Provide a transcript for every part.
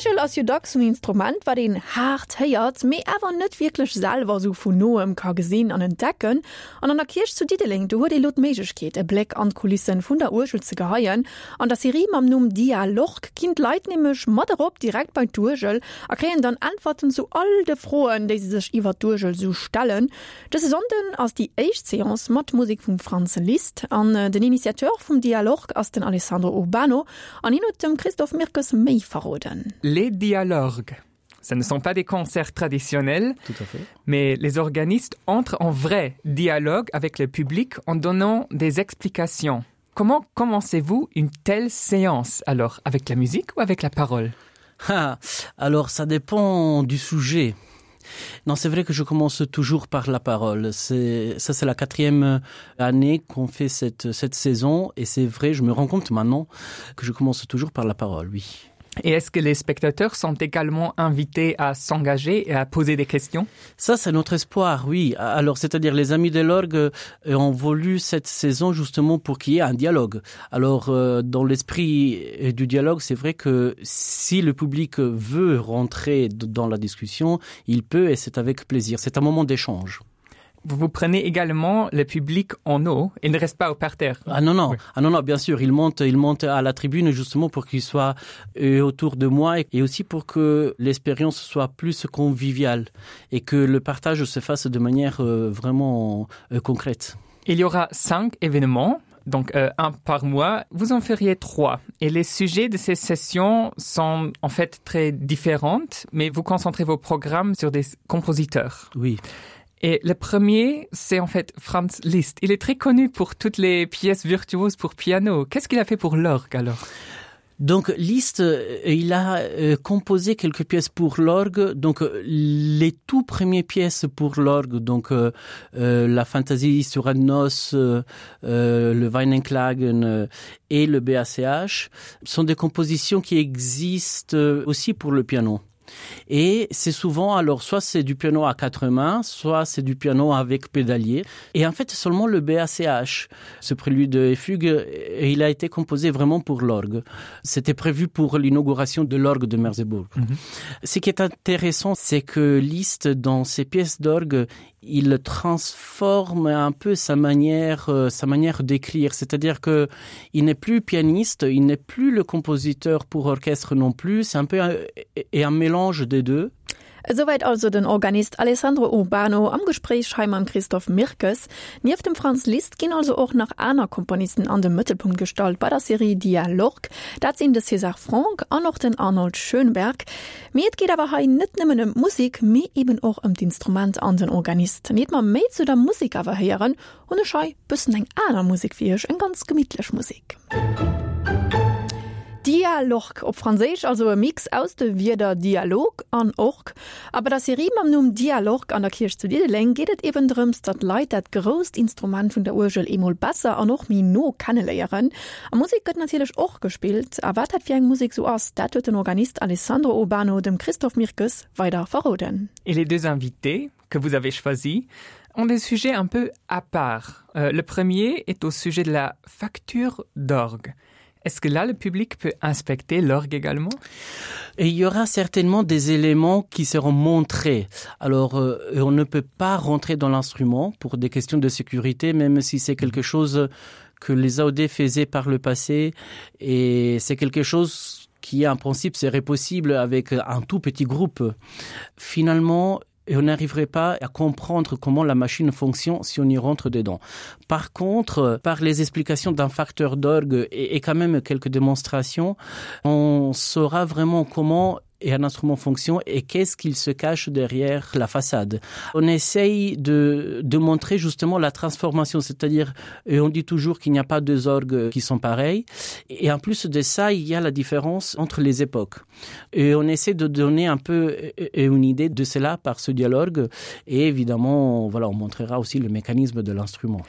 D'Uergel ass jo dacks en Instrument, wat een haart héiert, mee awer net wierklech selwer esou vun noem ka gesinn an entdecken. An an der Kierch zu Diddeleng, do huet ee lo d'Méiglechkeet, e Bléck an d'Kulissen vun der Uergel ze geheien. An der Serie mam Numm Dialorg ginn d'Leit nämlech mat erop direkt bei d'Uergel a kréien dann Äntwerten zu all de Froen, déi se sech iwwert d'Uergel esou stellen. Dëse Sonnden ass déi éischt Seance mat Musek vum Franz Liszt an den Initiateur vum Dialorg ass den Alessandro Urbano an hien huet dem Christophe Mirkes méi verroden. Les Dialorgues, ce ne sont pas des concerts traditionnels, Tout à fait. mais les organistes entrent en vrai dialogue avec le public en donnant des explications. Comment commencez-vous une telle séance alors avec la musique ou avec la parole ah, Alors ça dépend du sujet. Non, c'est vrai que je commence toujours par la parole. C'est ça c'est la quatrième année qu'on fait cette, cette saison et c'est vrai, je me rends compte maintenant que je commence toujours par la parole, oui. Et est-ce que les spectateurs sont également invités à s'engager et à poser des questions Ça, c'est notre espoir, oui. Alors, c'est-à-dire les amis de l'orgue euh, ont voulu cette saison justement pour qu'il y ait un dialogue. Alors, euh, dans l'esprit euh, du dialogue, c'est vrai que si le public veut rentrer dans la discussion, il peut et c'est avec plaisir. C'est un moment d'échange. Vous vous prenez également le public en eau et ne reste pas au parterre. Ah non, non. Oui. Ah non, non, bien sûr, il monte, il monte à la tribune justement pour qu'il soit euh, autour de moi et aussi pour que l'expérience soit plus conviviale et que le partage se fasse de manière euh, vraiment euh, concrète. Il y aura cinq événements donc euh, un par mois, vous en feriez trois. Et les sujets de ces sessions sont en fait très différentes, mais vous concentrez vos programmes sur des compositeurs. Oui. Et le premier, c'est en fait Franz Liszt. Il est très connu pour toutes les pièces virtuoses pour piano. Qu'est-ce qu'il a fait pour l'orgue alors? Donc Liszt, euh, il a euh, composé quelques pièces pour l'orgue, donc euh, les tout premières pièces pour l'orgue, donc euh, euh, la fantaisie sur Adnos, euh, euh, le Weinenklagen euh, et le BACH sont des compositions qui existent aussi pour le piano. Et c'est souvent alors soit c'est du piano à quatre mains, soit c'est du piano avec pédalier. Et en fait seulement le BACH, ce prélude et fugue, et il a été composé vraiment pour l'orgue. C'était prévu pour l'inauguration de l'orgue de Merseburg. Mm -hmm. Ce qui est intéressant, c'est que Liszt dans ses pièces d'orgue, il transforme un peu sa manière euh, sa manière d'écrire c'est-à-dire que il n'est plus pianiste il n'est plus le compositeur pour orchestre non plus c'est un peu un, et un mélange des deux Esouwäit also den Organist Alessandro Urbano am Gespréich hei mam Christophe Mirkes. Nieft dem Franz Liszt ginn also och nach aner Komponisten an de Mëttelpunkt gestallt bei der Serie Dialorg. Dat sinn de César Franck an och den Arnold Schönberg. Mee et geet awer hei net nëmmen ëm d'Musek, mee eben och ëm d'Instrument an den Organist. Iert mer méi zu der Musek awer héieren, hunn ech hei bëssen eng aner Musek fir iech, eng ganz gemittlech Musek. Dialorg, op Franséisch, also e Mix aus de Wierder Dialog an Org. A bei der Serie mam Numm Dialorg an der Kierch zu Diddeleng geet et eben drëms, datt d'Leit dat grousst Instrument vun der Uergel eemol besser an och méi no kenneléieren. A Musek gëtt natierlech och gespillt. A wat dat fir eng Musek sou ass, dat huet den Organist Alessandro Urbano dem Christophe Mirkes weider verroden. Et les deux invités que vous avez choisis ont des sujets un peu à part. Euh, le premier est au sujet de la facture d'orgue. Est-ce que là le public peut inspecter l'orgue également Et il y aura certainement des éléments qui seront montrés. Alors euh, on ne peut pas rentrer dans l'instrument pour des questions de sécurité, même si c'est quelque chose que les AOD faisaient par le passé et c'est quelque chose qui en principe serait possible avec un tout petit groupe. Finalement, et on n'arriverait pas à comprendre comment la machine fonctionne si on y rentre dedans. Par contre, par les explications d'un facteur d'orgue et, et quand même quelques démonstrations, on saura vraiment comment et un instrument fonction et qu'est-ce qu'il se cache derrière la façade. On essaye de, de montrer justement la transformation, c'est-à-dire et on dit toujours qu'il n'y a pas deux orgues qui sont pareils et en plus de ça il y a la différence entre les époques. Et on essaie de donner un peu et une idée de cela par ce dialogue et évidemment voilà on montrera aussi le mécanisme de l'instrument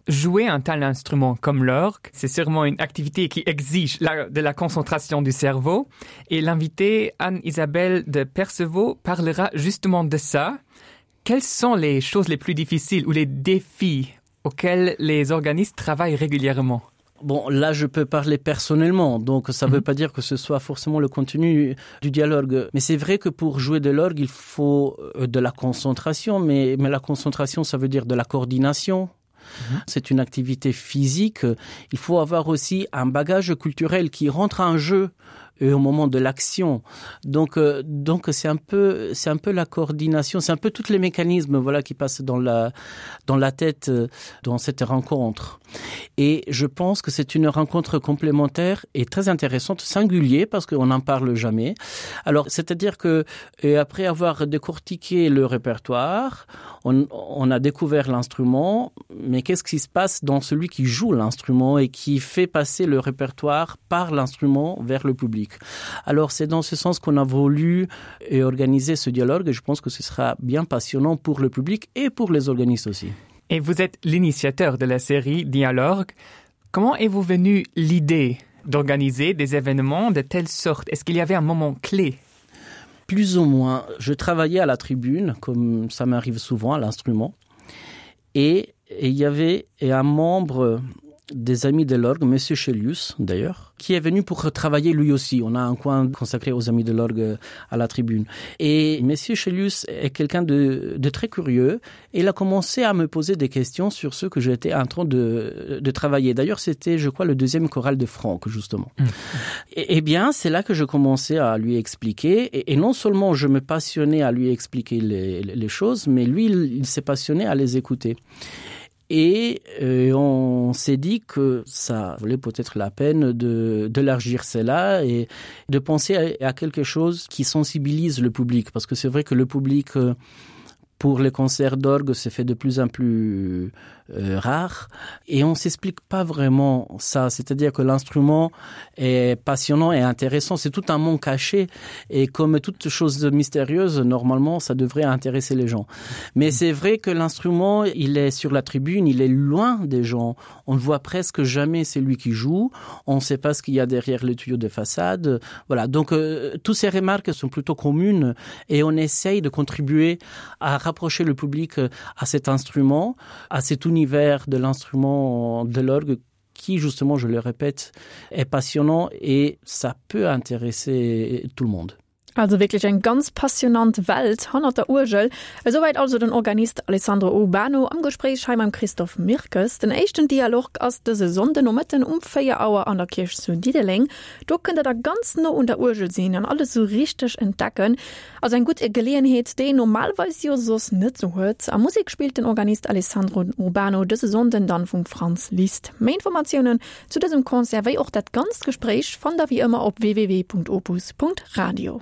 jouer un tel instrument comme l'orgue, c'est sûrement une activité qui exige la, de la concentration du cerveau et l'invité Anne-Isabelle de Percevaux parlera justement de ça. Quelles sont les choses les plus difficiles ou les défis auxquels les organistes travaillent régulièrement? Bon, là je peux parler personnellement, donc ça mm -hmm. veut pas dire que ce soit forcément le contenu du dialogue. Mais c'est vrai que pour jouer de l'orgue, il faut euh, de la concentration, mais, mais la concentration, ça veut dire de la coordination. Mhm. C'est une activité physique. Il faut avoir aussi un bagage culturel qui rentre en jeu et au moment de l'action. Donc, euh, donc c'est un peu c'est un peu la coordination, c'est un peu tous les mécanismes voilà qui passent dans la dans la tête euh, dans cette rencontre. Et je pense que c'est une rencontre complémentaire et très intéressante, singulier parce qu'on n'en parle jamais. Alors c'est à dire que et après avoir décortiqué le répertoire, on, on a découvert l'instrument, mais qu'est-ce qui se passe dans celui qui joue l'instrument et qui fait passer le répertoire par l'instrument vers le public. Alors c'est dans ce sens qu'on a voulu et organiser ce dialogue et je pense que ce sera bien passionnant pour le public et pour les organistes aussi. Et vous êtes l'initiateur de la série Dialogue. Comment est-vous venu l'idée d'organiser des événements de telle sorte? Est-ce qu'il y avait un moment clé? Plus ou moins, je travaillais à la tribune, comme ça m'arrive souvent à l'instrument et, et il y avait et un membre des amis de l'orgue, monsieur Chelius d'ailleurs, qui est venu pour travailler lui aussi. On a un coin consacré aux amis de l'orgue à la tribune. Et monsieur Chelius est quelqu'un de, de très curieux et il a commencé à me poser des questions sur ce que j'étais en train de, de travailler. D'ailleurs, c'était, je crois, le deuxième choral de Franck, justement. Mmh. Et, et bien, c'est là que je commençais à lui expliquer. Et, et non seulement je me passionnais à lui expliquer les, les choses, mais lui, il, il s'est passionné à les écouter. Et euh, on s'est dit que ça valait peut-être la peine de d'élargir cela et de penser à, à quelque chose qui sensibilise le public parce que c'est vrai que le public euh, pour les concerts d'orgue se fait de plus en plus euh, rare et on s'explique pas vraiment ça c'est à dire que l'instrument est passionnant et intéressant c'est tout un monde caché et comme toute chose mystérieuse normalement ça devrait intéresser les gens mais c'est vrai que l'instrument il est sur la tribune il est loin des gens on ne voit presque jamais celui qui joue on ne sait pas ce qu'il y a derrière le tuyau de façade voilà donc euh, toutes ces remarques sont plutôt communes et on essaye de contribuer à rapprocher le public euh, à cet instrument à cet univers de l'instrument de l'orgue qui justement je le répète est passionnant et ça peut intéresser tout le monde. Also wierklech eng ganz passionant Welt hannert der Uergel. Esouwäit also den Organist Alessandro Urbano am Gespréich hei mam Christophe Mirkes. Den éischten Dialorg ass dëse Sonnde Nomëtten um 4 Auer an der Kierch zu Diddeleng. Do kënnt der da ganz no un der Uergel sinn an alles sou richteg entdecken. Also eng gutt Geleeënheet, déi een normalweis jo soss net sou huet. A Musek spillt den Organist Alessandro Urbano dëse Sonnden dann vum Franz Liszt. Méi Informatiounen zu dësem Concert wéi och dat ganzt Gespréich fannt der wéi ëmmer op www.opus.radio.